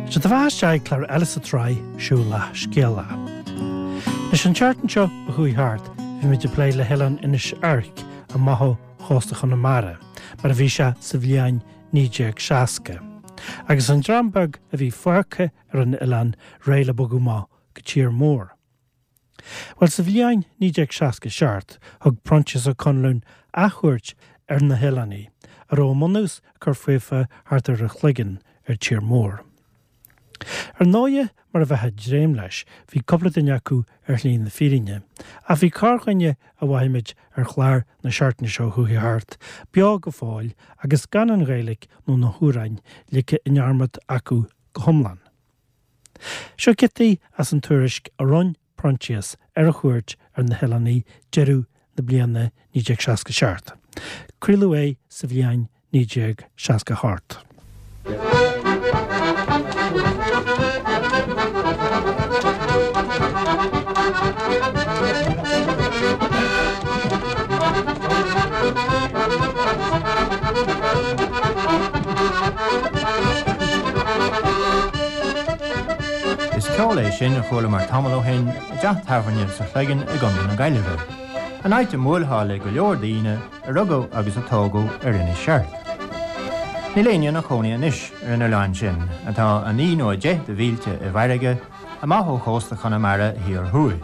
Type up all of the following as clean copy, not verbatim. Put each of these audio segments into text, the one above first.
Sé do bheatha isteach ag clár eile sa tsraith Siúlach Scéalach. Anois an tseachtain seo a chuaigh thart bhí muid ag plé le hoileán Inis Oirc amach ó chósta Chonamara mar a bhí sé sa bhliain 1960 agus an dream beag a bhí fágtha ar an oileán réidh le bogadh amach go tír mór. Bhuel, sa bhliain 1967, thug Proinsias Ó Conluain athchuairt ar na hoileánaigh, a raibh a mbunús ag cur faofa thart ar an Chloigeann ar tír mór. Ar ndóighe, mar a bheifeá ag dréim leis, bhí cúpla duine acu ar shlí na fírinne, ach bhí corrdhuine a mhothaigh muid ar chlár na seachtaine seo chuaigh thart, beo go fóill agus gan an Ghaeilge nó na hamhráin ligthe i ndearmad acu go hiomlán. Seo giotaí as an tuairisc a rinne Proinsias ar a chuairt ar na hoileánaigh deireadh na bliana 1967. Craoladh é sa bhliain 1968. Is ceol é sin a chualamar tamall ó shin i dteach tábhairne sa Chloigeann i gContae na Gaillimhe, an áit a mbuailfeá le go leor daoine a rugadh agus a tógadh ar Inis Seirc. Níl éinne ina chónaí anois ar an oileán sin, atá 9 nó 10 de mhílte i bhfarraige amach ó chósta Chonamara thiar thuaidh.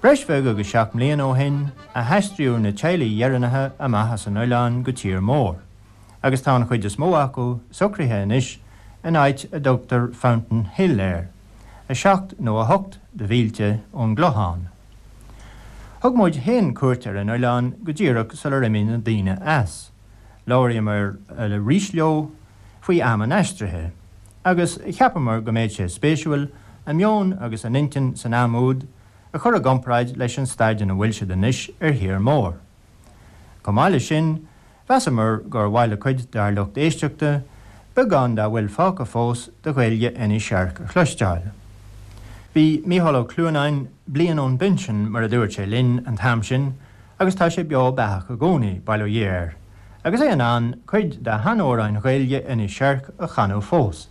Breis bheag agus 7 mbliana ó shin a haistríodh na teaghlaigh dheireanacha amach as an oileán go tír mór, agus tá an chuid is mó acu socraithe anois in áit a dtugtar Fountain Hill air, 7 nó 8 de mhílte ón gClochán. Thug muid féin cuairt ar an oileán go díreach sular imigh na daoine as. Labhraíomar arís leo faoi am an aistrithe, agus cheapamar go mbeadh sé spéisiúil a meon agus a n-intinn san am úd a chur i gcomparáid leis an staid ina bhfuil siad anois ar thír mór. Chomh maith leis sin, mheasamar gur mhaith le cuid dár lucht éisteachta beagán dá bhfuil fágtha fós de Ghaeilge Inis Seirc a chloisteáil. Bhí Mícheál Ó Cluanáin bliain ón bpinsean, mar a dúirt sé linn an t-am sin, agus tá sé beo beathach i gcónaí, bail ó Dhia air, agus é in ann cuid de sheanamhráin Ghaeilge Inis Seirc a chanadh fós.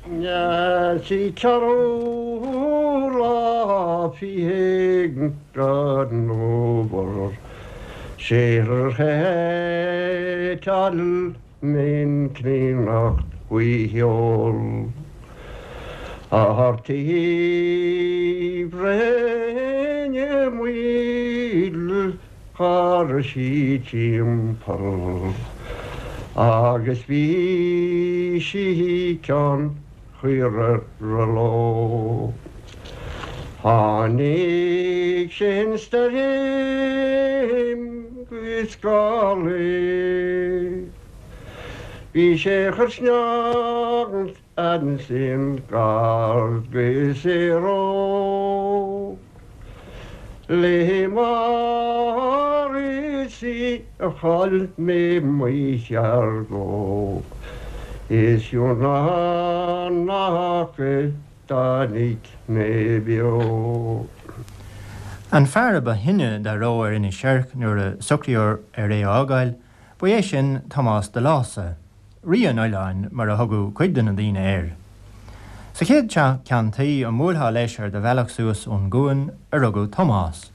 Sí ceathrú lá fichead den fhómhar sé thar min críonnacht faoi sheol a taobh Réine Maoil char sí timpeall agus bhí sí ceann chaora leo. Tháinig sin stoirm agus gálaí. Bhí sé chur sneágant ansin gar go Saoró. Le mar is í a chaill mé mo sheargó is ionadh nach dtáinig mé beo. An fear a ba shine dá raibh ar Inis Seirc nuair a socraíodh ar é a fhágáil, ba é sin Tomás de Lása, Rí an Oileáin mar a thugadh cuid de na daoine air. Sa chéad teach ceann tuí a mbuailfeá leis ar do bhealach suas ón gcuan a rugadh Tomás,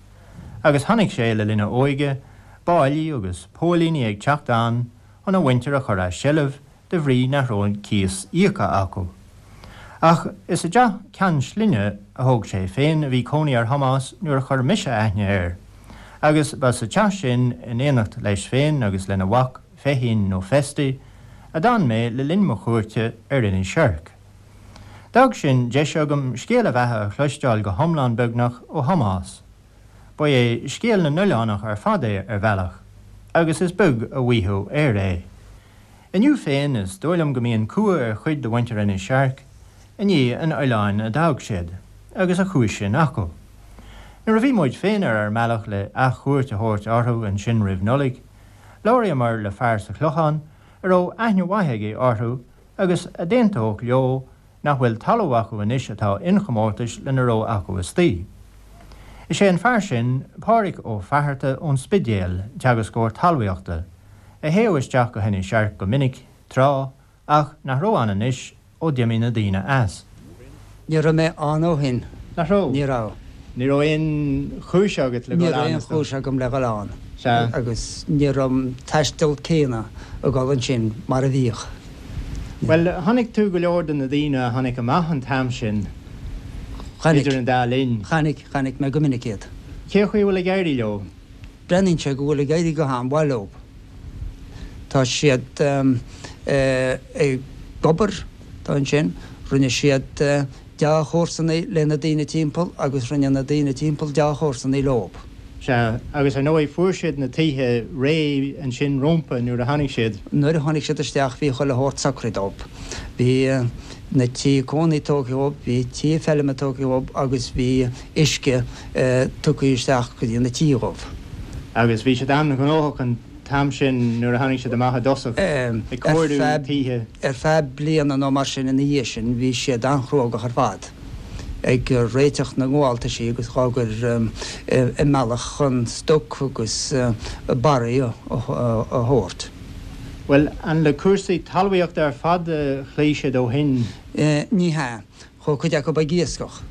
agus chonaic sé le linn a óige báillí agus póilíní ag teacht ann chun a mhuintir a chur as seilbh de bhrí nach raibh an cíos íoctha acu. Ach is i dteach ceann slinne a thóg sé féin a bhí cónaí ar Thomás nuair a chuir mise aithne air, agus ba sa teach sin, in éineacht leis féin agus lena mhac Feichín nó Festy, a d'fhan mé le linn mo chuairte ar Inis Seirc. D'fhág sin deis agam scéal a bheatha a chloisteáil go hiomlán beagnach ó Thomás. Ba é scéal na n-oileánach ar fad é ar bhealach, agus is beag a mhaítheamh air é. Inniu féin is dóigh liom go mbíonn cumha ar chuid de mhuintir Inis Seirc i ndiaidh an oileáin a d'fhág siad, agus a chúis sin acu. Nuair a bhí muid féin ar ár mbealach le athchuairt a thabhairt orthu ansin roimh Nollaig, labhraíomar le fear sa Chlochán a raibh aithne mhaith aige orthu agus a d'aontódh leo nach bhfuil talamh acu anois atá inchomórtais lena raibh acu istoíche. Is é an fear sin Pádraig Ó Fatharta ón Spidéal, teagascóir talmhaíochta, a théadh isteach go hInis Seirc go minic, tráth, ach nach raibh ann anois. ó d'imigh na daoine as. Ní raibh mé ann ó shin. Nach raibh? Ní raibh. Ní raibh aon chúis agat le Ní dhul raibh ann, aon is dóigh. chúis agam le dhul ann. Sea. Agus ní raibh an taisteal céanna ag dul ansin mar a bhíodh. Bhuel, chonaic tú go leor de na daoine a tháinig amach an t-am sin, Chonaic. idir an dá linn. Chonaic, chonaic mé go minic iad. Cé chaoi a bhfuil ag éirí leo? Breathnaíonn sé go bhfuil ag éirí go han-mhaith leo. Tá siad ag obair ansin, rinne siad dea-chomharsanaí le na daoine timpeall agus rinne na daoine timpeall dea-chomharsanaí leo. Sea, agus ar ndóigh fuair siad na tithe réidh ansin rómpa nuair a tháinig siad. Nuair a tháinig siad isteach bhí chuile shórt socraithe dóibh. Bhí na tithe cónaí tógtha dhóibh, bhí tithe feilme tógtha dhóibh agus bhí uisce tugtha isteach go dtí na tithe dhóibh. Agus bhí siad an-ghnóthach an t-am sin nuair a tháinig siad amach i dtosach, ag cóiriú tithe. Ar feadh bliana nó mar sin ina dhiaidh sin bhí siad an-chruógach ar fad, ag réiteach na ngabháltaisí agus dhá gcur i mbealach chun stoc agus barraí a thabhairt. Bhuel, an le cúrsaí talmhaíochta ar fad a chloígh siad ó shin? Ní hea. Chuaigh cuid acu ag iascach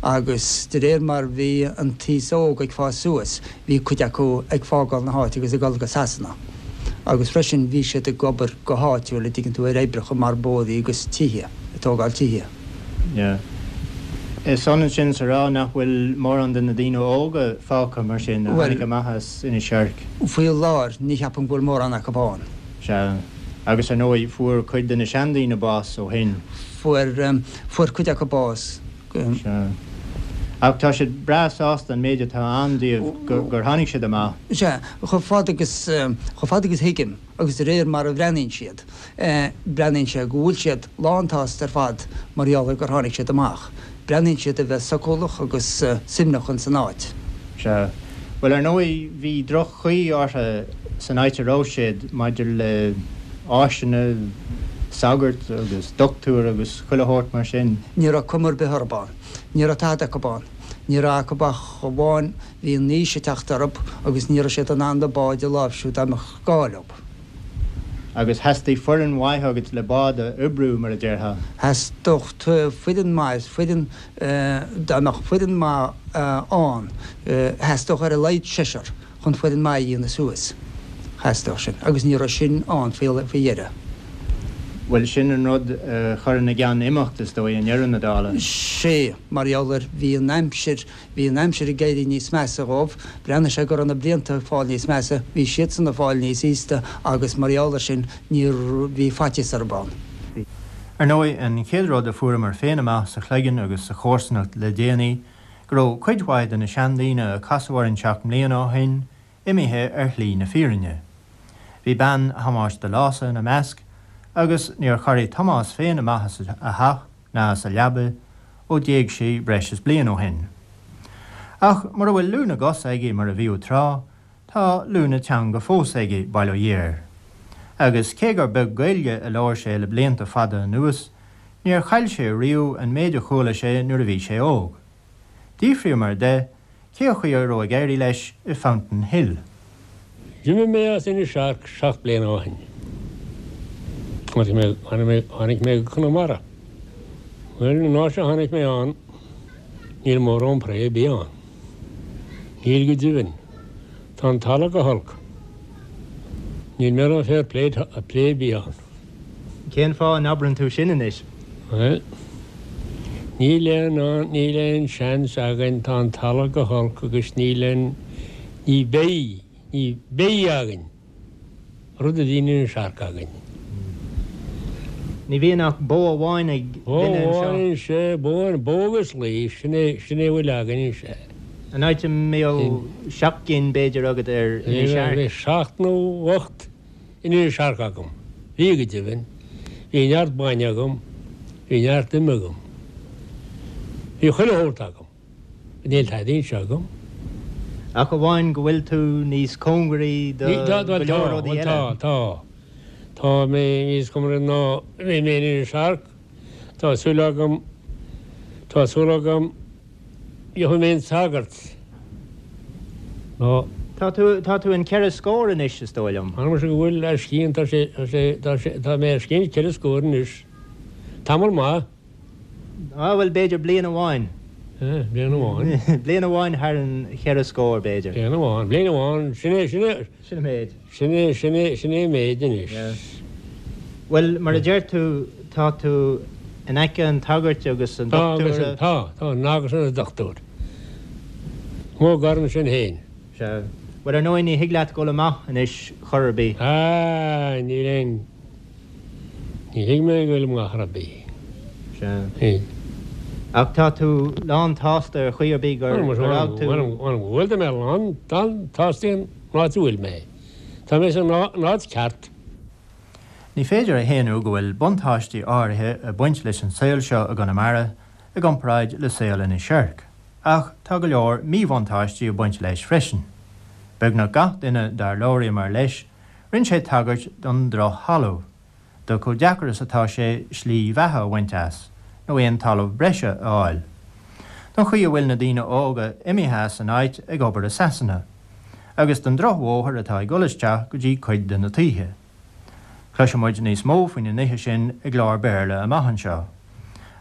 agus de réir mar bhí an t-aos óg ag fás suas bhí cuid acu ag fágáil na háite agus ag dul go Sasana. Agus freisin bhí siad ag obair go háitiúil, a dtuigeann tú, ar oibreacha mar bóithrí agus tithe, ag tógáil tithe. Yeah. Is ionann sin is a rá nach bhfuil mórán de na daoine óga fágtha mar sin a tháinig amach as Inis Oirc. Faoi láthair ní cheapaim go bhfuil mórán acu ann. Sea. Agus ar ndóigh fuair cuid de na seandaoine bás ó shin. Fuair, fuair cuid acu bás. Sea. Ach tá siad breá sásta an méid atá ann díobh gur, gur tháinig siad amach. Sea, chomh fada agus, chomh fada agus thuigim, agus de réir mar a bhreathnaíonn siad, breathnaíonn sé go bhfuil siad lán tsásta ar fad mar gheall ar gur tháinig siad amach. Breathnaíonn siad a bheith socúlach agus suaimhneach ins an áit. Sea. Bhuel, ar ndóigh, bhí droch-chaoi orthu san áit a raibh siad maidir le áiseanna, sagart agus doctúir agus chuile shórt mar sin. Ní raibh cuma ar bith orthu ann. Ní raibh tada acu ann. Ní raibh acu ach amháin bhí an aois ag teacht orthu agus ní raibh siad in ann na báid a láimhsiú dá mbeadh gá leo. Agus theastaigh foireann mhaith agat le bád a oibriú, mar a déarfá. Theastódh foireann maith, foireann, dá mbeadh foireann maith ann, theastódh ar a laghad seisear chun foireann maith a dhéanamh suas. Theastódh sin. Agus ní raibh sin ann faoi dheireadh. Bhuel, sin an rud a chuir ina gceann imeacht, is dóigh, i ndeireadh na dála. Sea, mar gheall ar, bhí an aimsir, Bhí an aimsir ag éirí níos measa dhóibh, bhreathnaigh sé go raibh na blianta ag fáil níos measa, bhí siadsan ag fáil níos aosta agus mar gheall ar sin ní bhí faitíos orthu ann. Ar ndóigh, an chéad rud a fuaireamar féin amach sa Chloigeann agus sa chomharsanacht le déanaí, go raibh cuid mhaith de na seandaoine a casadh orainn seacht mbliana ó shin imithe ar shlí na fírinne. Bhí bean Thomáis de Lása ina measc agus níor chorraigh Tomás féin amach as a theach ná as a leaba ó d'éag sí breis is bliain ó shin. Ach mura bhfuil lúth na gcos aige mar a bhíodh tráth, tá lúth na teanga fós aige, bail ó Dhia air. Agus cé gur beag Gaeilge a labhair sé le blianta fada anuas, níor chaill sé riamh an méid a chuala sé nuair a bhí sé óg. D'fhiafraíomar de cé chaoi a raibh ag éirí leis i Fountain Hill. D'imigh mé as Inis Airc 7 bliana ó shin. Tháinig mé go Conamara. Bhuel, an áit a tháinig mé ann, níl mórán pré ar bith ann. Níl go deimhin. Tá an talamh go holc. Níl mórán fair play ar bith ann. Cén fáth a n-abrann tú sin anois? Bhuel, níl aon, níl aon seans againn, tá an talamh go holc agus níl aon, ní bheidh, ní bheidh againn rud a bhí in Inis Airc againn. Ní bhíonn ach bó amháin ag Bó duine anseo. amháin anseo, bó, bó agus lao, sin é, sin é a bhfuil againn anseo. An áit a mbíodh seacht gcinn b'fhéidir agat ar Inis Airc. Bhí seacht nó ocht in Inis Airc agam. Bhí go deimhin. Bhí neart bainne agam. Bhí neart ime agam. Bhí chuile shórt agam. Níl tada anseo agam. Ach amháin go bhfuil tú níos cóngaraí do go leor rudaí eile. Tá, tá. Tá mé níos cóngaraí ná bhí mé in Inis Airc. Tá súil agam, tá súil agam Gheobhaidh mé an sagart. Nó. Tá tú, tá tú an ceithre scór anois, is dóigh liom. M'anam go bhfuil, ar scian, tá sé, tá sé, tá sé, tá mé ar scian ceithre scór anois. Tamall maith. Á, bhuel, b'fhéidir bliain amháin. Bliain amháin. Bliain amháin thar an cheithre scór, b'fhéidir. Bliain amháin, bliain amháin, sin é, sin é. Sin an méid. Sin é, sin é, sin é an méid anois. Yeah. Bhuel, mar a deir tú, tá tú in aice an tsagairt agus an dochtúra. Tá, tá, agus an dochtúir. Mo gar ansin féin. Sea. Bhuel, ar ndóigh, ní thig leat dul amach anois chor ar bith. Ah, níl aon, ní thig mé dul amach chor ar bith. Sea. Níl. Ach tá tú lán tsásta ar chaoi ar bith gur fhág tú. Bhuel, tá mé lán tsásta an áit a bhfuil mé. Tá mé san áit ceart. Ní féidir a shéanadh go bhfuil buntáistí áirithe ag baint leis an saol seo i gConamara i gcomparáid le saol Inis Oirc, ach tá go leor míbhuntáistí ag baint leis freisin. Beagnach gach duine dár labhraíomar leis, rinne sé tagairt don droch-thalamh, do chomh deacair is atá sé slí bheatha a bhaint as, nó aon talamh breise a fháil, don chaoi a bhfuil na daoine óga imithe as an áit ag obair i Sasana, agus don drochbhóthar atá ag dul isteach go dtí cuid de na tithe. Cloisfidh muid níos mó faoi na nithe sin i gclár Béarla amach anseo.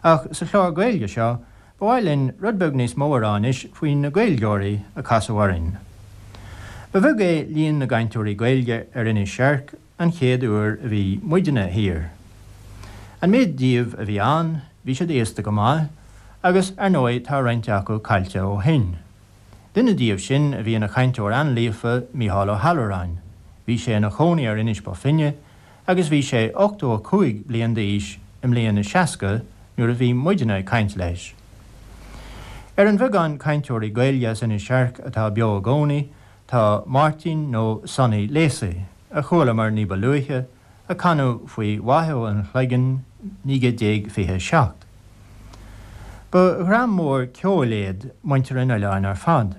Ach sa chlár Gaeilge seo, ba mhaith linn rud beag níos mó a rá anois faoi na Gaeilgeoirí a casadh orainn. Ba bheag é líon na gcainteoirí Gaeilge ar Inis Oirc an chéad uair a bhí muidne thiar. An méid díobh a bhí ann, bhí siad aosta go maith, agus ar ndóigh tá roinnt acu caillte ó shin. Duine díobh sin a bhí ina chainteoir an-líofa, Mícheál Ó hAllmhuráin. Bhí sé ina chónaí ar Inis Bó Finne agus bhí sé 85 bliain d'aois i mbliain a 60 nuair a bhí muidne ag caint leis. Ar an bheagán cainteoirí Gaeilge as Inis Oirc atá beo i gcónaí tá Máirtín nó Sonny Lacey, a chualamar ní ba luaithe, a canadh faoi Mhaigh Eo an Chloigeann 1927. Ba dhream mór ceoil iad muintir an oileáin ar fad,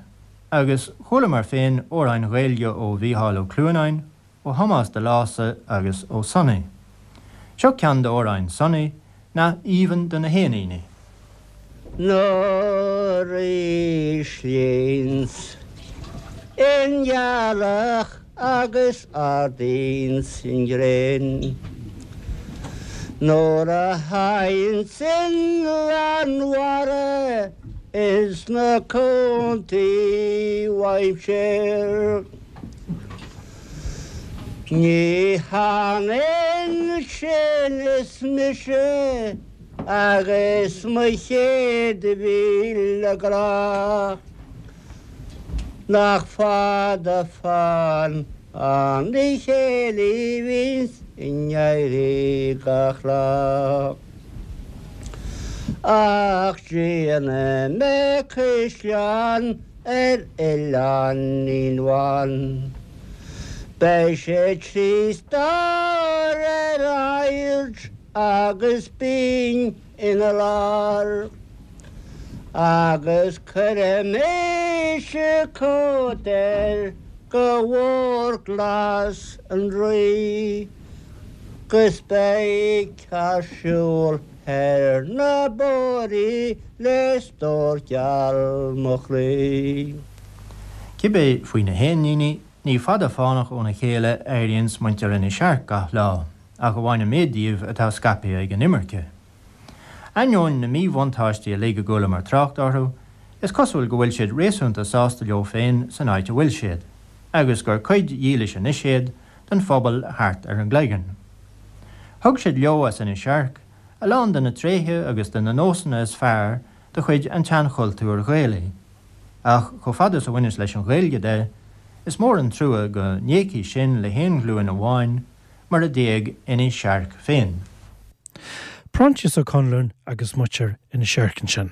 agus chualamar féin amhráin Ghaeilge ó Mhícheál Ó Cluanáin, ó Thomás de Lása agus ó Sonny. Seo ceann d'amhráin Sonny, nath aoibhinn do na héiníní. Nuair a íslíonns an ghealach agus ardaíonns an ghréin, Nuair a thaganns an mheánmhara ins na cuantaí uaimse. Ní hionann sin is mise agus mo chéad mhíle grá. Nach fada fán an chéilí bhíonns in éirí gach lá. Ach déanfaidh mé caisleán ar oileáinín bhán. Beidh sé trí stór ar aird agus binn ina lár. Agus cuirfidh mise cóta air go mhór glas an Rí. 'Gus beidh cead siúl ar na bóithrí le stór geal mo chroí. Cibé faoi na héiníní, ní fada fánach óna chéile a éiríonns muintir Inis Oirc gach lá, ach amháin an méid díobh atá scaipthe ag an imirce. Ainneoin na míbhuntáistí uilig a gcualamar trácht orthu, is cosúil go bhfuil siad réasúnta sásta leo féin san áit a bhfuil siad, agus gur cuid dhílis anois iad den phobal thart ar an gCloigeann. Thug siad leo as Inis Oirc a lán de na tréithe agus de na nósanna is fearr de chuid an tseanchultúir Ghaelaigh. Ach chomh fada is a bhaineas leis an Ghaeilge de, is mór an trua go n-éagfaidh sin le haon ghlúin amháin, mar a d'éag Inis Oirc féin. Proinsias Ó Conluain agus muintir Inis Oirc ansin.